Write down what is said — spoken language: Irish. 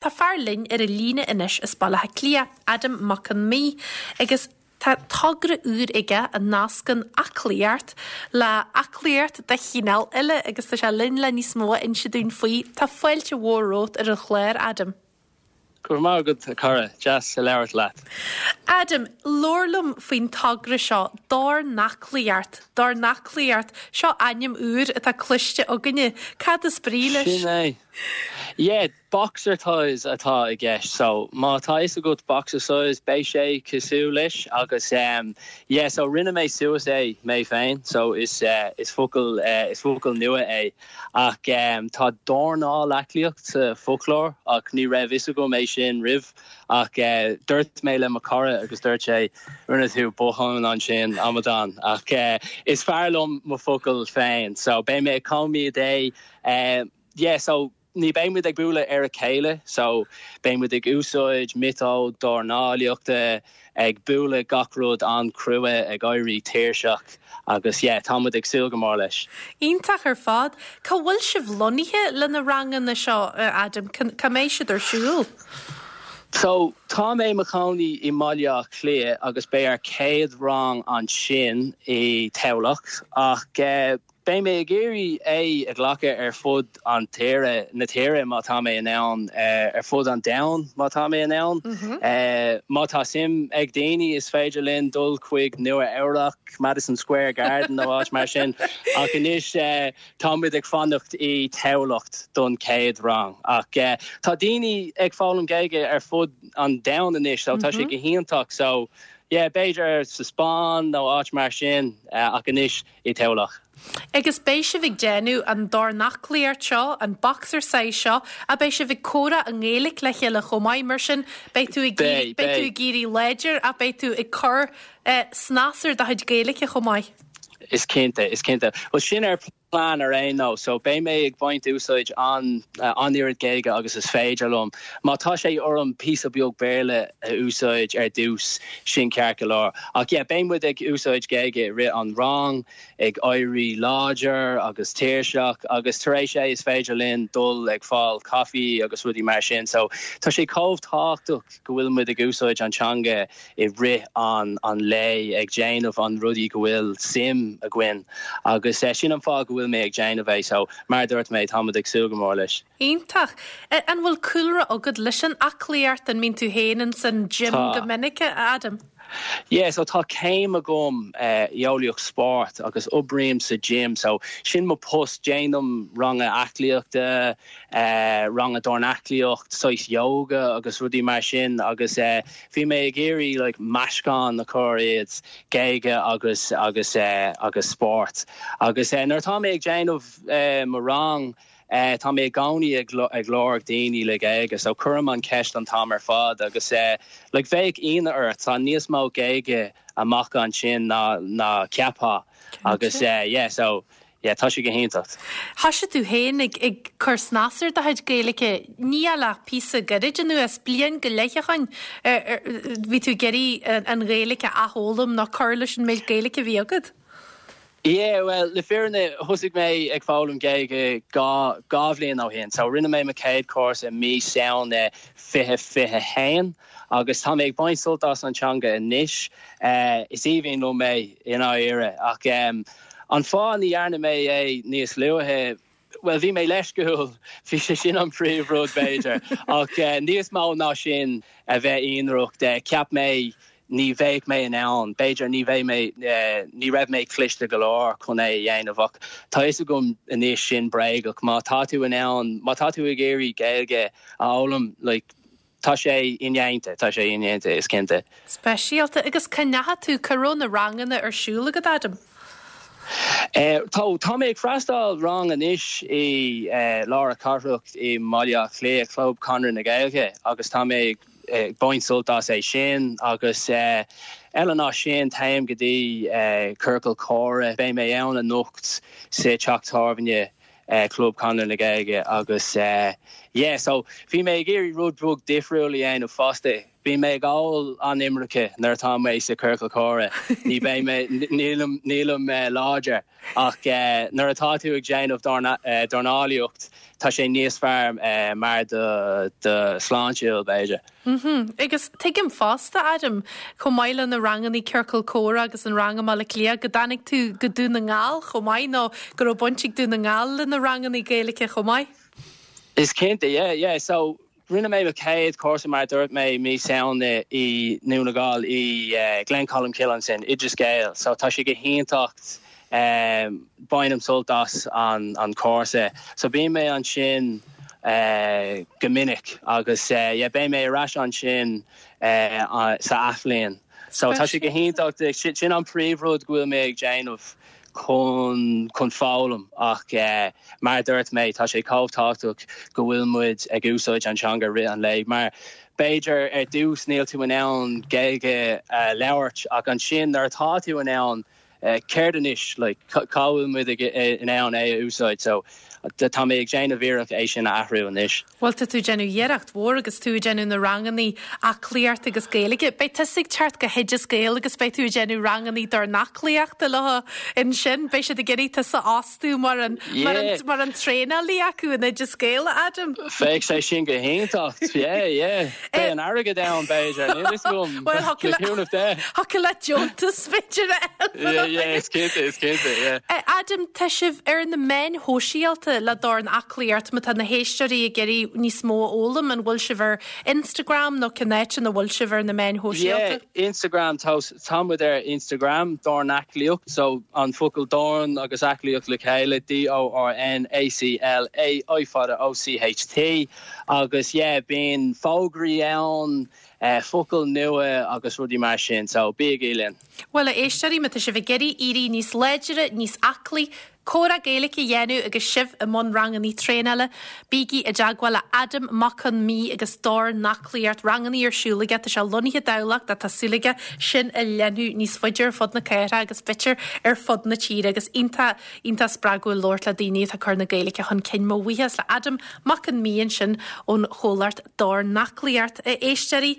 Tá fear linn ar an líne anois as Baile Átha Cliath, Adam Mac Con Midhe, agus tá togra úr aige a nascann aclaíocht le aclaíocht de chineál eile agus tá sé linn le níos mó a inse dúinn faoi. Tá fáilte mhór romhat ar an chlár, Adam. Go raibh maith agat, a chara. Deas a labhairt leat. Adam, labhair liom faoin togra seo, Dornaclaíocht. Dornaclaíocht, seo ainm úr atá cloiste againne. Cad is brí leis? Sin é. Yeah. Boxercise atá i gceist so má tá fhios agat boxercise beidh sé cosúil leis agus em yeah so rinne mé suas é mé féin so is eh is focal eh is focal nua é ach em tá dornálaclaíocht sa foclóir ach ní raibh fhios agam é sin roimh ach eh dúirt mé le mo chara agus dúirt sé rinne tú botún ansin amadán ach eh is fearr liom mo focal féin so beidh mé ag coimeád é eh yeah so Ní beidh muid ag bualadh ar a chéile so beidh muid ag úsáid miotóid dornálaíochta, ag bualadh gach rud an-chrua, ag éirí tuirseach agus yeah tá muid ag súil go mór leis. Iontach ar fad. Cá bhfuil sibh lonnaithe le na ranganna seo, Adam? Cá mbeidh siad ar siúl? So tá mé i mo chónaí i mBaile Átha Cliath agus beidh ár chéad rang ansin i Tamhlacht ach Beidh mé ag iarraidh é a ghlacadh ar fud an tíre, na tíre má tá mé in ann, ar fud an domhain má tá mé in ann. Má tá suim ag daoine is féidir linn dul chuig Nua Eabhrac, Madison Square Garden nó áit mar sin. Ach anois tá muid ag fanacht i Tamhlacht don chéad rang. Ach tá daoine ag foghlaim Gaeilge ar fud an domhain anois so tá sé go hiontach. So yeah b'fhéidir sa Spáinn nó áit mar sin ach anois i Tamhlacht. Agus beidh sibh ag déanamh an dornaclaíocht seo, an boxercise seo, ach beidh sibh ag comhrá i nGaeilge le chéile chomh maith, mar sin beidh tú ag beidh tú ag éirí láidir ach beidh tú ag cur snas ar do chuid Gaeilge chomh maith. Is cinnte, is cinnte. Bhuel sin ar plean ar aon nós, so beidh mé ag baint úsáid an an oiread Gaeilge agus is féidir liom. Má tá sé orm píosa beag Béarla a úsáid ar dtús, sin ceart go leor. Ach yeah, beidh muid ag úsáid Gaeilge i rith an rang, ag éirí láidir agus tuirseach agus tar éis é is féidir linn dul ag fáil coffee agus rudaí mar sin. So tá sé chomh tábhachtach go bhfuil muid ag úsáid an teanga i rith an an lae ag déanamh an rudaí go bhfuil suim againn agus sin an fáth go bhfuil mé ag déanamh é. So mar a dúirt mé, tá muid ag súil go mór leis. Iontach. An bhfuil cúlra agat leis an aclaíocht? An mbíonn tú féin ins an gym go minic, a Adam? Yeah, so tá céim agam i eolaíocht spóirt agus oibrím sa gym, so sin mo post, déanaim ranga aclaíochta, ranga dornaclaíocht, saghas yoga agus rudaí mar sin agus bhí mé ag iarraidh like meascán a chur iad, Gaeilge agus agus agus spórt. Agus nuair atá mé ag déanamh mo rang, Tá mé i gcónaí ag lorg daoine le Gaeilge so cuirim an ceist an t-am ar fad agus like bheadh ionadh ort, tá níos mó Gaeilge amach ansin ná ná ceapfá agus yeah so yeah tá sé go hiontach. Thoisigh tú féin ag ag cur snas ar do chuid Gaeilge, ní ach le píosa gairid anuas, bliain go leith ó shoin, bhí tú ag iarraidh an Ghaeilge a athfhoghlaim nó cur leis an méid Gaeilge a bhí agat? Yeah, bhuel, le fírinne, thosaigh mé ag foghlaim Gaeilge 2 bhliain ó shin. So, rinne mé mo chéad cúrsa i mí Samhna 2021 agus tá mé ag baint sult as an teanga anois. Is aoibhinn liom é, i ndáiríre. Ach an fáth ní dhearna mé é níos luaithe, bhuel, bhí mé leisciúil, bhí sé sin an príomh rud, b'fhéidir. Ach níos mó ná sin, a bheith ionraic, cheap mé ní bheadh mé in ann, b'fhéidir ní bheidh mé, ní raibh mé cliste go leor chun é a dhéanamh ach tá fhios agam anois sin bréagach. Má tá tú in ann, má tá tú ag iarraidh Gaeilge a fhoghlaim, like, tá sé indéanta, tá sé indéanta, is cinnte. Speisialta. Agus cá ndeachaigh tú, cá raibh na ranganna ar siúl agat, Adam? Tá, tá mé ag freastáil rang anois i lár na cathrach i mBaile Átha Cliath, Club Conradh na Gaeilge agus tá mé ag ag baint sult as é sin agus eile ná sin téim go dtí ciorcal comhrá, beidh mé ann anocht sa teach tábhairne Club Conradh na Gaeilge agus. yeah so bhí mé ag iarraidh rud beag difriúil a dhéanamh fosta. Bíonn mé ag ól an iomarca nuair atá mé sa ciorcal comhrá. Ní beidh mé, nílim, nílim láidir ach nuair atá tú ag déanamh dornálaíocht tá sé níos fearr mar do do sláintiúil b'fhéidir. Mhm. Agus tuigim fosta, Adam, chomh maith le na rangannaí ciorcal comhrá agus an rang i mBaile Átha Cliath, go dtáinig tú go Dún na nGall chomh maith nó go raibh baint ag Dún na nGall le na rangannaí Gaeilge chomh maith? Is cinnte, yeah, yeah. So, rinne mé mo chéad cúrsa mar a dúirt mé mí Samhna i nDún na nGall i Glencolmcille ansin, Oideas Gael. So tá sé go hiontach, bainim sult as an cúrsa. So bíonn mé ansin go minic agus yeah beidh mé ar ais ansin sa athbhliain. So tá sé go hiontach, sin an príomhrud go bhfuil mé ag déanamh chun chun foghlaim ach mar a dúirt mé tá sé chomh tábhachtach go bhfuil muid ag úsáid an teanga rith an lae mar b'fhéidir ar dtús níl tú in ann Gaeilge a labhairt ach ansin nuair atá tú in ann céard anois like cá bhfuil muid in ann é a úsáid so tá mé ag déanamh iarracht é sin a athrú anois. Bhuel tá tú ag déanamh iarracht mhór agus tú ag déanamh na rangannaí aclaíochta agus Gaeilge. Beidh tusa ag teacht go hOideas Gael agus beidh tú ag déanamh rangannaí dornaclaíochta leo ansin. Beidh siad ag iarraidh tusa a fhostú mar an mar an mar an traenálaí acu in Oideas Gael, a Adam. Bheadh sé sin go hiontach. Yeah, yeah. Beidh an airgead ann b'fhéidir. Níl fhios agam. Bhuel thiocfadh le thiocfadh le deontas b'fhéidir a fháil. Yeah, yeah, is cinnte, is cinnte, yeah. Adam, tá sibh ar na meáin shóisialta le Dornaclaíocht, má tá na héisteoirí ag iarraidh níos mó a fhoghlaim, an bhfuil sibh ar Instagram nó cén áit ina bhfuil sibh ar na meáin shóisialta? Yeah, Instagram, tá, tá muid ar Instagram, Dornaclaíocht, so an focal dorn agus aclaíocht le chéile, D-O-R-N-A-C-L-A, I fada O-C-H-T, agus yeah, bíonn fógraí ann, focail nua agus rudaí mar sin, so bígí linn. Bhuel, a éisteoirí, má tá sibh ag iarraidh éirí níos láidre, níos aclaí, comhrá Gaeilge a dhéanamh agus sibh i mbun rangannaí traenála, bígí i dteagmháil le Adam Mac Con Mí agus Dornaclaíocht. Rangannaí ar siúl aige, tá sé lonnaithe i dTamhlacht ach tá súil aige sin a leathnú níos faide ar fud na cathrach agus b'fhéidir ar fud na tíre agus iontach, iontach spreagúil labhairt le daoine atá ag cur na Gaeilge chun cinn. Mo bhuíochas le Adam Mac Con Mí ansin ón chomhlacht Dornaclaíocht. A éisteoirí.